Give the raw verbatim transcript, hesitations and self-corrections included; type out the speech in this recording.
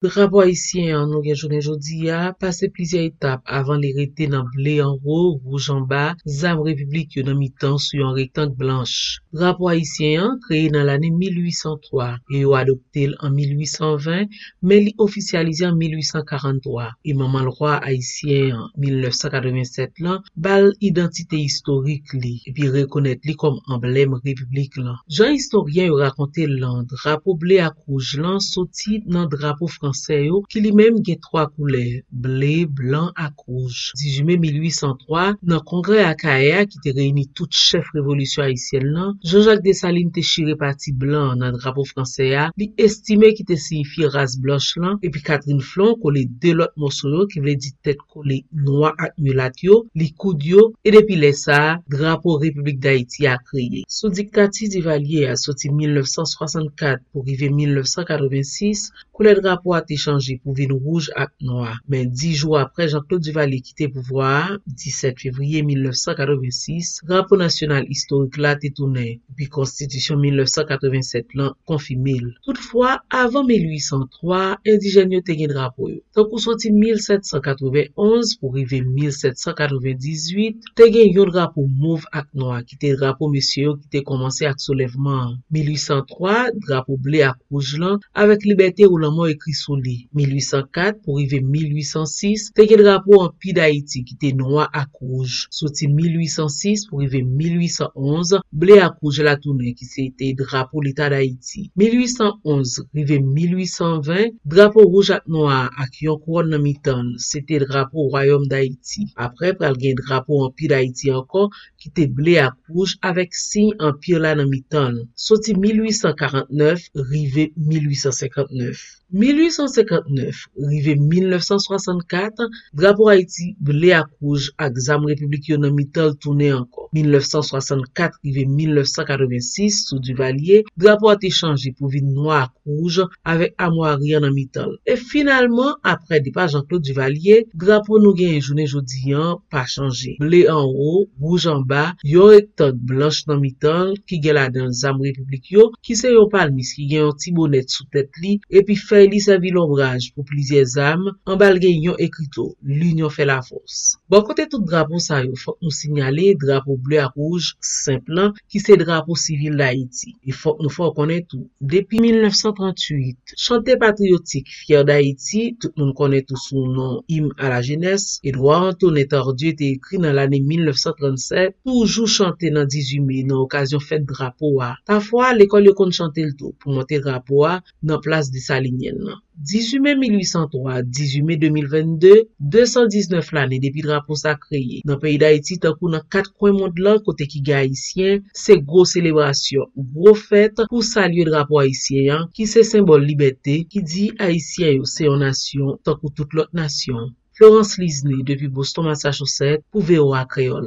Drapo ayisyen an nou gen jounen jodi a pase plizyè etap avan li rete nan ble anwo, wouj anba, zam repiblik yo nan mitan sou yon rektang blanch. Drapo ayisyen an kreye nan lane mil ui san twa e yo adopte l an mil ui san ven, men li ofisyalize an mil ui san karant twa. E manman lwa ayisyen an, mil nèf san katreven sèt lan, ba l idantite istorik li epi rekonèt li kòm anblèm repiblik lan. Jan istoryen yo rakonte l lan, drapo ble ak wouj lan soti nan drapo fransè yo ki li menm gen twa koulè, ble, blan ak wouj. Dizuit me mil ui san twa, nan kongrè Akayè a ki te reyini tout chèf revolisyon ayisyèn lan, Jean Jacques Dessalines te chire pati blan an nan drapo fransè a, li estime ki te siyifye ras blanch lan, epi Catherine Flon kole de lòt mòso yo ki vle di tèt kole nwa ak milat yo, likoud yo, e depi lè sa a, drapo Repiblik Dayiti a kreye. Sou diktati Divalye a soti mil nèf san swasannkat pou rive mil nèf san katreven sis, koulè drapo a te chanje pou vin wouj ak nwa. Men dis jou apre Jean-Claude Duvalier kite pouvwa a, disèt fevriye mil nèf san katreven sis, drapo nasyonal istorik la te tounen, epi konstitisyon mil nèf san katreven sèt lan konfime l. Toutfwa, avan mil ui san twa, endijèn yo te gen drapo yo. Tankou soti mil sèt san katreven onz pou rive mil sèt san katreven dizuit, te gen yon drapo mov ak nwa ki te drapo mesye yo ki te kòmanse ak soulèvman an. Mil ui san twa, drapo ble ak wouj lan, avèk libète ou lanmò ekri sou li. Mil ui san kat pou rive mil ui san sis, te gen drapo Anpi Dayiti ki te nwa ak wouj. Soti mil ui san sis pou rive mil ui san onz, ble ak wouj la tounen ki se te drapo Leta Dayiti. Mil ui san onz rive mil ui san ven, drapo wouj ak nwa a ak yon kouwòn nan mitan l, se te drapo Wayòm Dayiti. Apre, pral gen drapo Anpi Dayiti ankò, ki te ble ak wouj avèk siy anpi la nan mitan l, soti mil ui san karant nèf rive mil ui san senkant nèf. Mil ui san senkant nèf rive mil nèf san swasannkat, drapo Ayiti ble ak wouj ak zam repiblik yo nan mitan l tounen ankò. Mil nèf san swasannkat rive mil nèf san katreven sis, sou Divalye, drapo a te chanje pou vin nwa ak wouj avèk amwari an nan mitan l. E finalman, apre depa Jean-Claude Duvalier, drapo nou genyen jounen jodi an pa chanje. Ble anwo, wouj anba, yon rektang blanch nan mitan l ki gen ladan l zam repiblik yo, ki se yon palmis ki gen yon ti bonèt sou tèt li, epi fèy li sèvi lonbraj pou plizyè zam, anba l gen yon ekrito, L'union fait la force. Bò kote tout drapo sa yo, fòk nou sinyale drapo ble ak wouj senp lan, ki se drapo sivil Dayiti. E fòk nou fè w konnen tou, depi mil nèf san tranntuit, chante patriyotik Fière d'Haïti, tout moun konnen tou sou non Hymne à la jeunesse, Edouard Antonin Tardieu te ekri nan lane mil nèf san trannsèt, toujou chante nan dizuit me nan okazyon fèt drapo a. Pafwa, lekòl yo konn chante l tou pou monte drapo a nan plas Desalinyèn nan. Dizuit me mil ui san twa, dizuit me de mil vennde, de san diznèf lane depi drapo sa kreye. Nan peyi Dayiti, tankou nan kat kwen mond lan kote ki gen Ayisyen, se gwo selebrasyon, gwo fèt pou salye drapo ayisyen an, ki se senbòl libète, ki di Ayisyen yo se yon nasyon tankou tout lòt nasyon. Florence Lisney depi Boston, Massachusetts, pou V O A Kreyòl.